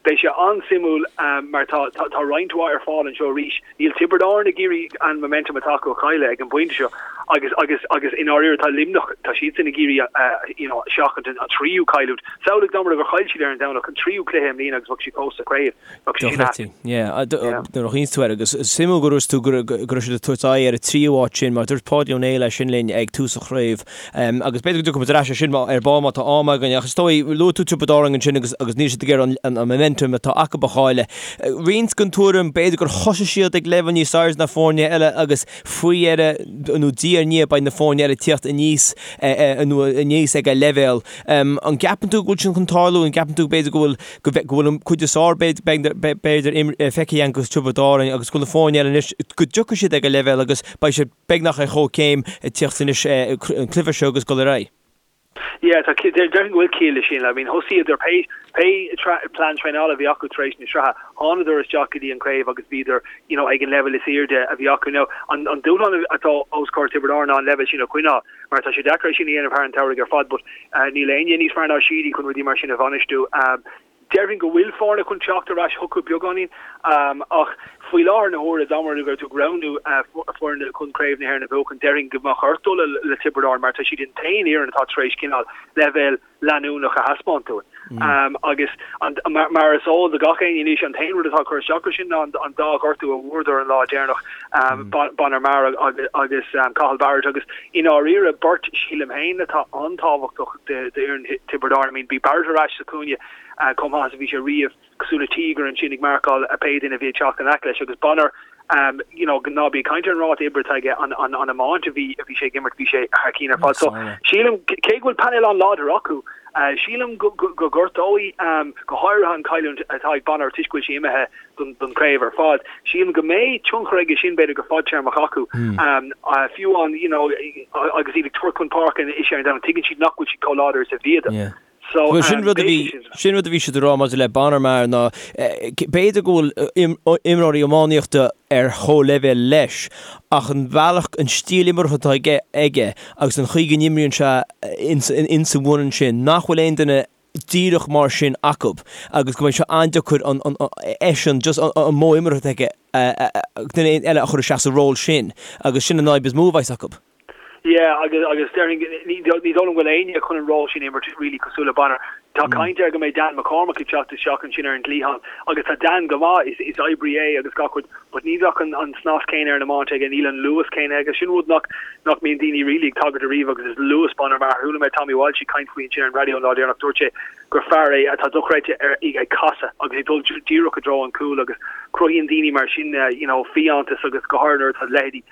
Beidh sé an-suimiúil mar tá tá roinnt mhaith ar fáil anseo arís. Níl Tiobraid Árann ag iarraidh an momentum atá acu a chailleadh ag an bpointe seo agus agus agus i ndáiríre tá Luimneach, tá siadsan ag iarraidh you know seachaint an tríú cailliúint. Samhlaigh dá mba rud é gur chaill siad ar an Domhnach an tríú cluiche i mbliana agus bheadh siad fós sa chraobh. Bheadh sé sin ait. Yeah, nuair a chaoineann tú air agus is suimiúil go dúirt tú go raibh siad ag tabhairt aghaidh ar an tríú háit sin mar dúirt Páidí Ó Néill é sin linn ag tús an chraobh agus b'fhéidir go dtiocfaidh muid ar ais ar sin ar ball má tá am againn ach is dóigh luaigh tú Tiobraid Árann ansin agus agus níl siad ag iarraidh an. an momentum atá acu a chailleadh. Roinnt den tuairim, b'fhéidir gur thosaigh siad ag leibhéal níos airde ná foirne eile agus faoi dheireadh nó diaidh ar ndiaidh beidh na foirne eile ag tíocht aníos nó aníos ag a leibhéal. An gceapann tú go bhfuil sin chun tarlú? An gceapann tú b'fhéidir go bhfuil go bhfuil an cuid is fearr b'fhéidir feicthe againn de Tiobraid Árann agus go bhfuil na foirne eile anois go dtiocfaidh siad ag a leibhéal agus beidh siad beagnach ar chomhchéim ag tíocht anois an cluiche seo agus dul ar aghaidh? Yeah, tá, déarfainn go bhfuil ciall leis sin. I mean, thosaíodar pé, pé plean traenála a bhí acu tar éis na sraithe, thánadar isteach go dtí an craobh agus bhíodar, you know, ag an leibhéal is airde a bhí acu. Now, an, an dúshlán atá os comhair Tiobraid Árann ná an leibhéal sin a choinneáil, mar tá sé deacair é sin a dhéanamh thar an tsamhraidh ar fad, but níl éinne níos fearr ná Sheedy chun rudaí mar sin a bhainistiú. Déarfainn go bhfuil foirne chun teacht ar ais chucu beagáinín ach faoi láthair na huaire, dá mba rud é go raibh tú ag roghnú foirne chun Craobh na hÉireann a bhuachan, déarfainn go mbeadh ort dul le Tiobraid Árann mar tá siad an t-aon fhoireann atá tar éis cineál leibhéal leanúnach a thaispeáint dúinn. Agus mar is eol do gach éinne anois, an t-aon rud atá ag cur isteach air sin ná an dá ghortú a bhfuaireadar an lá deireanach, Bonner Maher agus Cathal Barrett agus i ndáiríre beirt sílim féin atá an-tábhachtach d'fhoireann Thiobraid Árann. I mean, bhí Barrett ar ais sa chúinne chomh maith is a bhí sé riamh, cosúil le tíogar ansin ag marcáil pé duine a bhí ag teacht in aice leis agus Bonner, you know, ná bí ag caint ar an ráta oibre atá aige, an an iomáint a bhí a bhí sé ag imirt, bhí sé thar cinn ar fad. So, sílim, cé go bhfuil painéal an-láidir acu, sílim go go gortóidh, go háirithe an chailliúint atá ag Bonner toisc go bhfuil sé imithe don chraobh ar fad. Sílim go mbeidh tionchar aige sin b'fhéidir go fadtéarmach acu. Fiú an, you know, agus iad ag tabhairt chun páirce anois ar an Domhnach, tuigeann siad nach bhfuil siad chomh láidir is a bhíodar. So, Bhuel, sin rud a bhí, sin rud a bhí siad a rá maidir le Bonner Maher ná b'fhéidir go bhfuil imreoirí iománaíochta ar chomhleibhéal leis ach an bealach, an stíl imeartha atá aige, aige agus an chaoi go n-imríonn sé ins, ins an bhfoireann sin, nach bhfuil aon duine díreach mar sin acu agus go mbeidh sé an-deacair an eisean just an modh imeartha aige duine eile a chur isteach sa ról sin agus sin an fhadhb is mó a bheas acu. Yeah agus agus déarfainn ní dóigh liom go bhfuil éinne chun an ról sin a imirt really cosúil le Bonner. Tá caint air go mbeidh Dan McCormack ag teacht isteach ansin ar an gcliathán agus tá Dan go maith, is is oibrí é agus gach rud but ní bheadh an an snas céanna ar an iomáint aige, níl an luas céanna aige. Sin rud nach nach mbíonn daoine really ag tagairt ariamh agus is luas Bonner Maher. Chuala mé Tommy Walsh ag caint faoi ansin ar an raidió an lá deireanach, dúirt sé gur fear é atá dochreidte ar ag casadh agus ag dul díreach i dtreo an chúil agus cruthaíonn daoine mar sin you know fiántas agus go háirithe nuair atá leithéidí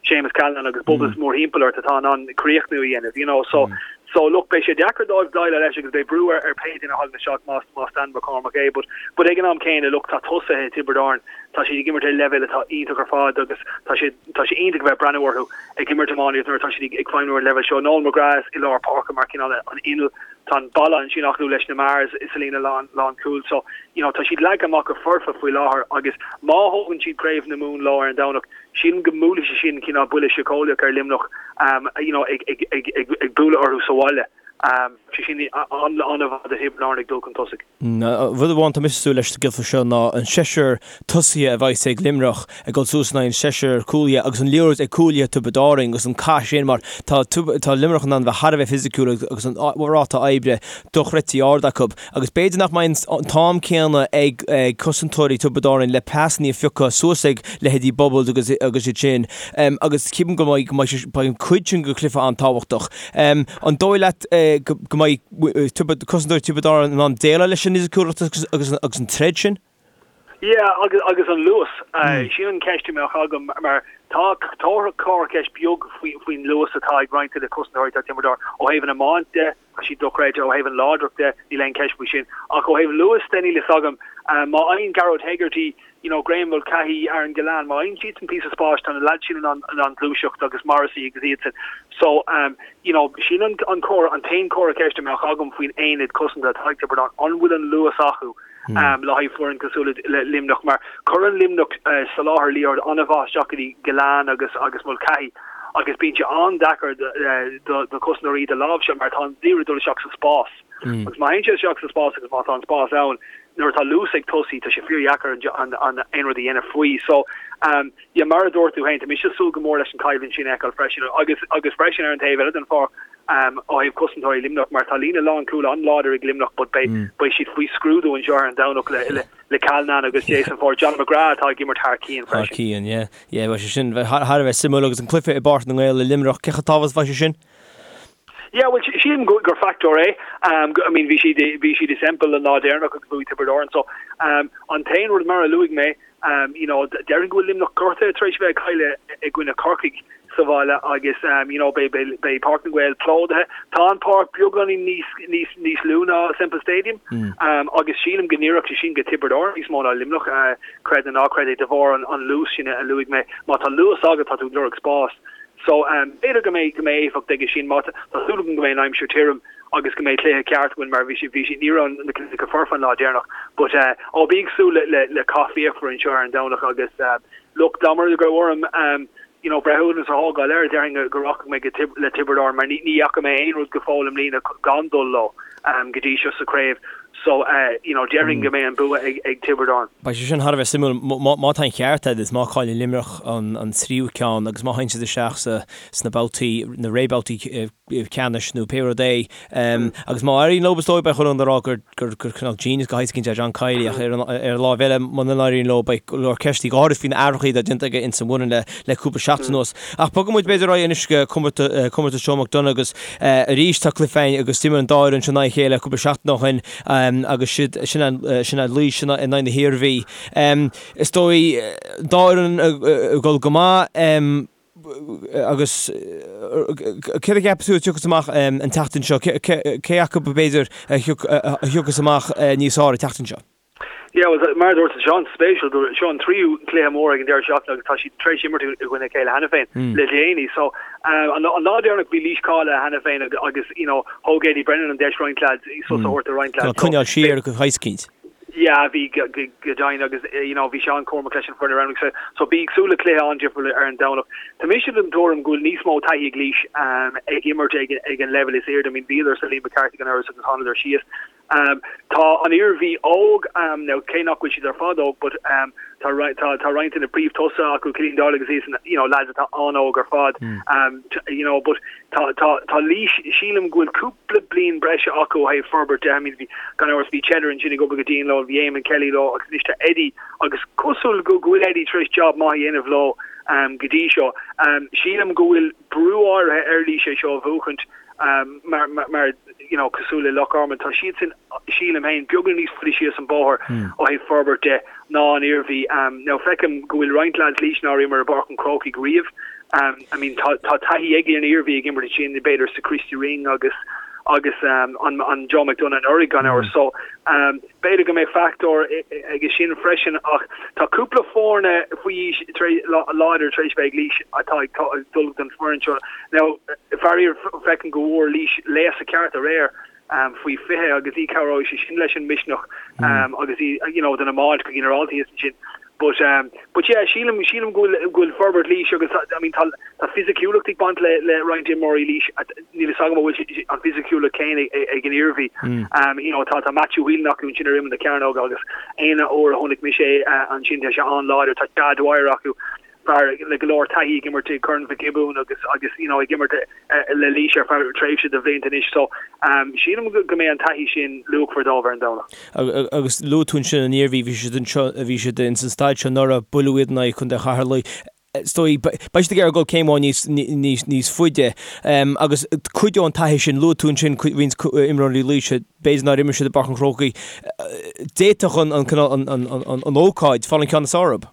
Séamus Callanan agus Bubbles mórthimpeall ort atá in ann críochnú a dhéanamh you know so so look beidh sé deacair dóibh déileáil leis agus beidh brú ar ar pé duine a thagann isteach más más Dan McCormack é but but ag an am céanna look tá tosaithe Tiobraid Árann tá siad ag imirt ar leibhéal atá iontach ar fad agus tá sé tá sé iontach a bheith ag breathnú orthu ag imirt iománaíocht nuair atá siad ag feidhmiú ar an leibhéal seo. Noel McGrath i lár páirce mar cineál an inneall tá an balla ansin acu leis na Mahers sa líne lán lán cúil so you know tá siad leagtha amach go foirfe faoi láthair agus má thógann siad craobh na Mumhan leo ar an Domhnach sílim go mbuailfidh sé sin cineál buille síceolaíoch ar Luimneach um you know ag ag ag ag ag bualadh orthu sa bhaile um sé sin an-mhaith do Thiobraid Árann ag dul chun tosaigh. Rud amháin tá mise ag súil leis sa gcluiche seo ná an seisear tosaithe a bheas ag Luimneach ag dul suas in aghaidh an seisear cúlaithe agus an liathróid ag cúlaithe Tiobraid Árann agus an cath sin mar tá tá Luimneach in ann bheith thar a bheith fisiciúil agus an ráta oibre dochreidte ard acu agus b'fhéidir nach mbeidh an t-am céanna ag cosantóirí Tiobraid Árann le pasanna a phiocadh suas ag leithéidí Bubbles agus agus iad sin agus ceapaim go mbeidh go mbeidh beidh an cuid sin den chluiche an-tábhachtach. An dóigh leat go mbeidh cosantóirí Tiobraid Árann in ann déileáil leis an fhisiciúlacht agus an troid sin? Yeah, agus agus an luas. Sin an ceist a mbeadh agam mar tá tá corrcheist beag faoin luas atá ag roinnt de na cosantóirí atá ag Tiobraid Árann. Ó thaobh an iomáint de, tá siad dochreidte, ó thaobh an láidreacht de, níl aon cheist faoi sin. Ach ó thaobh luas de, níl fhios agam. Má fhaigheann Gearóid Hegarty you know, Graham Mulcahy, Aaron Gillane, má fhaigheann siadsan píosa spáis, tá na lads sin in ann, in ann gluaiseacht agus Morrissey agus iadsan. So, um, you know, sin an, an comhartha, an t-aon comhartha ceiste a mbeadh agam faoin aonad cosanta atá ag Tiobraid Árann, an bhfuil an luas acu um, le haghaidh foireann cosúil le, le Luimneach, mar cuireann Luimneach uh, soláthar liathróid an-mhaith isteach go dtí Gillane agus, agus Mulcahy agus bíonn sé an-deacair do, uh, do, do chosantóirí iad a láimhseáil mar tá an liathróid ag dul isteach sa spás. Agus má théann sé isteach sa spás agus má tá an spás ann, nuair atá luas ag tosaí, tá sé fíordheacair an aon rud a dhéanamh faoi. So, um, yeah, mar a dúirt tú féin, tá mise ag súil go mór leis an choimhlint sin a fheiceáil freisin. Agus, agus freisin ar an taobh eile den pháirc, um, ó thaobh cosantóirí Luimneach, mar tá líne lánchúil an-láidir ag Luimneach, but beidh, mm. beidh siad faoi scrúdú anseo ar an Domhnach le, le, le Callanan agus Jason Forde. John McGrath atá ag imirt thar cionn freisin. Thar cionn, yeah. Yeah, beidh sé sin thar a bheith suimiúil agus an cluiche i bPáirc na nGael i Luimneach, cé chomh tábhachtach is a bheidh sé sin? Yeah, well, sílim gur factor é. I mean, bhí siad bhí siad i Semple an lá deireanach agus bhuaigh Tiobraid Árann. So, an t-aon rud mar a luaigh mé, you know, déarfainn go bhfuil Luimneach gortaithe tar éis a bheith ag cailleadh i gcoinne Corcaigh sa bhaile agus, you know, beidh beidh beidh Páirc na nGael plódaithe. Tá an páirc beagáinín níos níos níos lú ná Semple Stadium agus sílim go n-oirfeadh sé sin go Tiobraid Árann níos mó ná Luimneach, creid nó ná creid é, de bharr an an luas sin a luaigh mé. Má tá luas agat, tá tú ag lorg spás. So, b'fhéidir go mbeidh, go mbeidh éifeacht aige sin. Má tá, tá súil agam go mbeidh an aimsir tirim agus go mbeidh cluiche ceart againn mar bhí sé, bhí sé, ní raibh na cluichí go foirfe an lá deireanach. But, ó, bí ag súil le, le, le cath fíochmhar anseo ar an Domhnach agus, look, dá mba rud go raibh orm, you know, breithiúnas a thógáil air, déarfainn go rachaidh mé go Tib, le Tiobraid Árann mar ní, ní fhaca mé aon rud go fóill i mbliana gan dul leo, go dtí seo sa chraobh. So, you know, déarfainn go mbeidh an bua ag, ag Tiobraid Árann. Beidh sé sin thar a bheith suimiúil. Má tá an ceart agat is má chailleann Luimneach an tríú ceann agus má théann siad isteach sa, sna babhtaí, na rébhabhtaí ceannais nó pé rud é, agus má éiríonn leo is dóigh beidh chuile dhuine ag rá gur, gur, gur cineál genius de shaghas éicint é John Kiely ach ar an, ar an láimh eile muna n-éiríonn leo beidh go leor ceistí go háirid faoi na athruithe atá déanta aige ins an bhfoireann le, le cúpla seachtain anuas. Ach bogfaidh muid b'fhéidir ar aghaidh anois go comórtas, comórtas Joe McDonagh agus arís tá cluiche againn agus d'imir an dá fhoireann seo in aghaidh a chéile cúpla seachtain ó shin agus siad, sin sin Laois in aghaidh na hIarmhí. Is dóigh an dá fhoireann ag dul go maith agus céard a cheapas tú a thiocfas amach an tseachtain seo? Cé acu b'fhéidir a thiocfas amach níos fearr an tseachtain seo? Yeah, well, mar a dúirt tú, seo an-spéisiúil go seo an tríú cluiche mór ag an deireadh seachtaine agus tá siad tar éis imirt i gcoinne a chéile cheana féin le déanaí. So, an lá deireanach bhí Laois cáilithe cheana féin agus, you know, thóg Eddie Brennan an deis roinnt lads, sos a thabhairt do roinnt lads. Tá coinneáil siar go heascaínt. Yeah, bhí go deimhin agus, you know, bhí sé an-chúramach leis an foireann a roghnú. So, so bí ag súil le cluiche an-difriúil ar an Domhnach. Tá mise den tuairim go bhfuil níos mó taithí ag Laois ag imirt ag ag an leibhéal is airde. I mean, bhíodar sa Liam McCarthy anuraidh agus thánadar síos. Tá an Iarmhí óg, now cé nach bhfuil siad ar fad óg, but tá tá roinnt de na príomhthosaithe acu, Killian Doyle agus iadsan, you know, lads atá an-óg ar fad, you know, but tá tá tá Laois, sílim go bhfuil cúpla bliain breise acu ó thaobh forbairt de, I mean bhí, gan amhras, bhí Cheddar ansin ag obair go dian leo, bhí Eamon Kelly leo agus anois tá Eddie agus cosúil go go bhfuil Eddie tar éis job maith a dhéanamh leo go dtí seo. Sílim go bhfuil brú áirithe ar Laois é seo a bhuachaint mar mar you know, cosúil le Loch Garman, tá siadsan, sílim féin, beagán níos faide síos an bóthar ó thaobh forbairt de ná an Iarmhí. Now, feicim go bhfuil roinnt lads Laois nár imir i bPáirc an Chrócaigh riamh. I mean, tá, tá taithí ag an Iarmhí ag imirt ansin, b'fhéidir sa Christy Ring agus, agus an, an Joe McDonagh anuraidh gan amhras. So, B'fhéidir go mbeidh fachtóir aige sin freisin ach tá cúpla foirne faoi aois láidir tar éis bheith ag Laois atá ag dul don foireann seo. Now, faraor, feicim go bhfuair Laois léasadh ceart aréir faoi 20 agus ní chabhróidh sé sin leis an misneach agus you know, don iomáint go ginearálta thíos ansin. But um but yeah sílim sílim go bhfuil go bhfuil forbairt Laois agus I mean tá tá fisiciúlacht ag baint le le roinnt imreoirí Laois níl fhios agam an bhfuil an fisiciúlacht céanna ag an Iarmhí. Um you know tá tá Matthew Whelan acu ansin ar imeall na cearnóige agus aon uair a chonaic mise é ansin tá sé an-láidir tá Chad Dwyer acu fear le go leor taithí ag imirt i gCorn Mhic Giobúin agus agus you know ag imirt le Laois ar feadh tréimhse de bhlianta anois so sílim go mbeidh an taithí sin luachmhar dóibh ar an Domhnach. Agus luaigh tú ansin an Iarmhí, bhí siad anseo, bhí siad ins an staid seo anuraidh, buaileadh iad in aghaidh Chontae Cheatharlaigh. Is dóigh, beidh siad ag iarraidh dul céim amháin níos, níos, níos faide. Agus cuideoidh an taithí sin, luaigh tú ansin roinnt imreoirí Laoise, b'fhéidir nár imir siad i bPáirc an Chrócaigh. D'fhéadfadh an, an, cineál, an, an, an, an ócáid fáil an ceann is fearr orthu.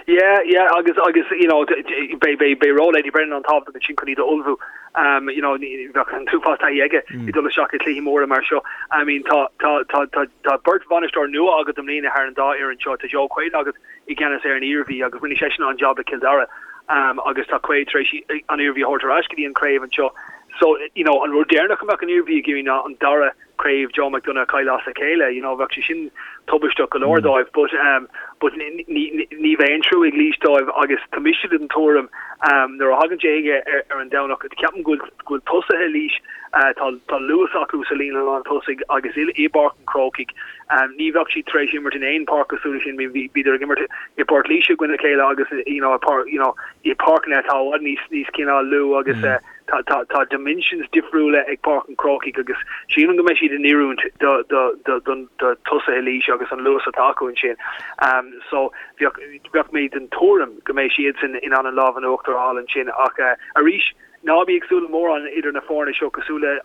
Yeah, yeah, agus, agus, you know, beidh, beidh, beidh ról Eddie Brennan an-tábhachtach ansin chun iad a ullmhú. Um, you know, bheadh an t-uafás taithí aige ag dul isteach i cluichí móra mar seo. I mean, tá, tá, tá, tá, tá beirt bhainisteoir nua agat i mbliana thar an dá fhoireann seo. Tá Joe Quaid agat i gceannas ar an Iarmhí agus rinne seisean an-jab le Cill Dara. Um, agus tá Quaid tar éis an Iarmhí a thabhairt ar ais go dtí an craobh anseo. So, you know, an rud deireanach a mbeadh an Iarmhí ag iarraidh ná an dara craobh Joe McDonagh a chailleadh as a chéile, you know, bheadh sé sin tubaisteach go leor dóibh but um but ní ní ní bheidh aon trua ag Laois dóibh agus tá mise den tuairim um nuair a thagann sé chuige ar ar an Domhnach ceapaim go bhfuil go bhfuil tosaithe Laois uh tá tá luas acu sa líne lán tosaigh agus i i bPáirc an Chrócaigh um ní bheadh siad tar éis imirt in aon páirc cosúil leis sin bhí bhíodar ag imirt i bPort Laoise i gcoinne a chéile agus you know i páirc you know i páirceanna atá i bhfad níos níos cineál lú agus uh Tá, tá, tá dimensions difriúla ag Páirc an Chrócaigh agus sílim go mbeidh siad in oiriúint do, do, do, do, do tosaithe Laois agus an luas atá acu ansin. Um, so, bheadh, bheadh mé den tuairim go mbeidh siadsan in ann an lámh in uachtar a fháil ansin ach uh, arís, ná bí ag súil le mórán idir na foirne seo cosúil le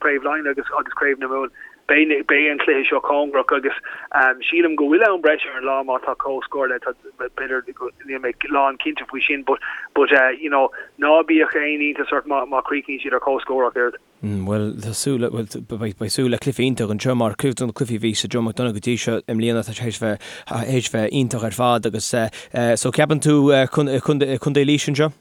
Craobh Laighean agus agus Craobh na Mumhan. Beidh beidh an cluiche seo cóngarach agus sílim go bhfuil am breise ar an lá má tá comhscór le b'fhéidir níl mé lán cinnte faoi sin but but you know ná bíodh aon iontas ort má má chríochnaíonn siad ar comhscór ach oiread. Bhuel, tá súil le, bhuel, beidh súil le cluiche iontach anseo mar cuid de na cluichí a bhí sa Joe McDonagh go dtí seo i mbliana, tá sé théis bheith, théis bheith iontach ar fad agus so ceapann tú Contae Laois anseo?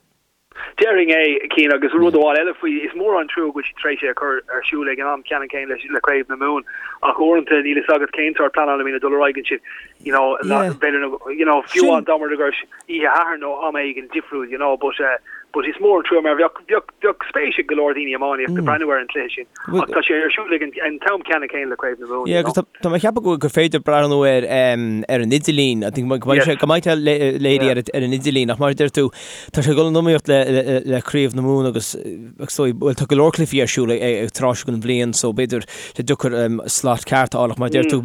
Déarfainn é, Cian, agus rud amháin eile faoi, is mór an trua go bhfuil siad tar éis é a chur ar siúl ag an am ceannann céanna le Craobh na Mumhan ach uaireanta níl fhios agat cén sórt pleanála a bhíonn ag dul ar aghaidh ansin, you know, b'fhéidir, you know, fiú amháin dá mba rud é go raibh oíche Shathairn nó am éigin difriúil, you know, but eh, but is mór an trua mar bheadh, bheadh, bheadh spéis ag go leor daoine iománaíochta breathnú ar an chluiche sin ach tá sé ar siúl ag an, an t-am ceannann céanna le Craobh na Mumhan, you know. Agus tá mé ag ceapadh go, gur féidir breathnú air ar an idirlíon, I think go mbeidh sé, go mbeidh sé léirithe ar, ar an idirlíon ach mar a deir tú, tá sé ag dul in iomaíocht le, le, le Craobh na Mumhan agus, agus so, bhuel tá go leor cluichí ar siúl ag, ag tráth seo den bhliain so b'fhéidir sé deacair slot ceart a fháil ach mar a deir tú,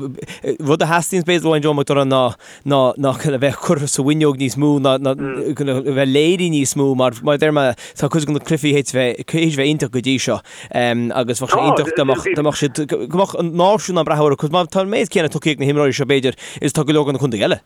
rud a theastaíonn b'fhéidir uaidh Joe McDonagh ná ná ná a bheith curtha sa bhfuinneog níos mó ná ná a bheith léirithe níos mó mar mar a deir mé tá cuid de na cluichí théis bheith théis bheith iontach go dtí seo agus bheadh sé iontach dá mbeadh dá mbeadh siad go mbeadh an náisiún ag breathnú orthu cos má tá an méid céanna tugtha ag na himreoirí seo b'fhéidir is tá go leor de na contaetha eile.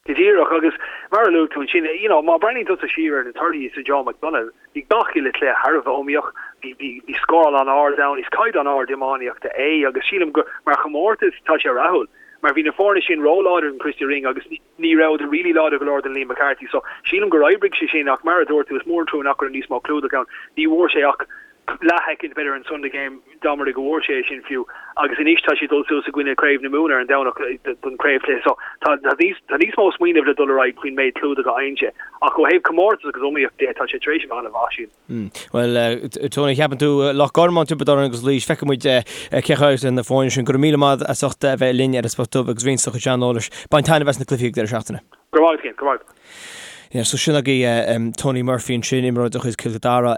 Go díreach agus mar a luaigh tú ansin you know má breathnaíonn tusa siar ar na torthaí sa Joe McDonagh bhí gach uile chluiche thar a bheith iomaíoch, bhí bhí bhí scóráil an-ard ann, is caighdeán ard iománaíochta é agus sílim gur mar chomórtas tá sé rathúil. Mar bhí na foirne sin ró-láidir don Christy Ring agus ní rabhadar really láidir go leor don Liam McCarthy so sílim gur oibrigh sé sin ach mar a dúirt tú is mór an trua nach raibh níos mó clúdach ann. Ní bhfuair sé ach leathshoicind b'fhéidir an Sunday Game dá mba rud é go bhfuair sé é sin fiú agus anois tá sé ag dul suas i gcoinne Craobh na Mumhan ar an Domhnach don chraobhchluiche so tá níos tá níos mó smaoineamh le dul ar aghaidh faoin méid clúdach a fhaigheann sé ach ó thaobh comórtas agus iomaíocht de tá sé tar éis a bheith an-mhaith sílim. Bhuel, Tony, ceapann tú Loch Garman, Tiobraid Árann agus Laois, feicfidh muid cé a chaillfidh na foirne sin. Go raibh míle maith as ucht a bheith linn ar an Spota Dubh agus roinnt do chuid saineolais. Bain taitneamh as na cluichí ag deireadh seachtaine. Go raibh maith agat, go raibh maith agat. Yeah, so sin agaibh Tony Murphy ansin, imreoir de chuid Chill Dara,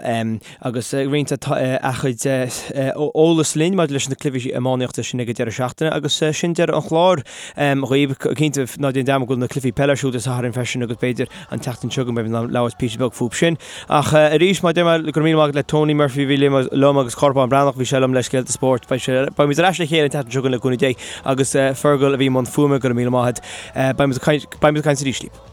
agus ag roinnt a chuid eolas linn maidir leis na cluichí iománaíochta sin ag an deireadh seachtaine agus sin deireadh an chláir dhaoibh. Cinnte, ná déan dearmad go bhfuil na cluichí peile ar siúl Dé Sathairn freisin agus b'fhéidir an tseachtain seo chugainn beidh mé ag labhairt píosa beag fúb sin. Ach arís, mar a deir mé, go raibh míle maith agat le Tony Murphy a bhí liom agus Cárthach Bán Breathnach, bhí sé liom le Scéalta Spóirt. Beidh sé, beimid ar ais le chéile an tseachtain seo chugainn le cúnamh Dé agus Fergal a bhí i mbun fuaime, go raibh míle maith agat. Beimid ag caint, beimid ag caint arís libh.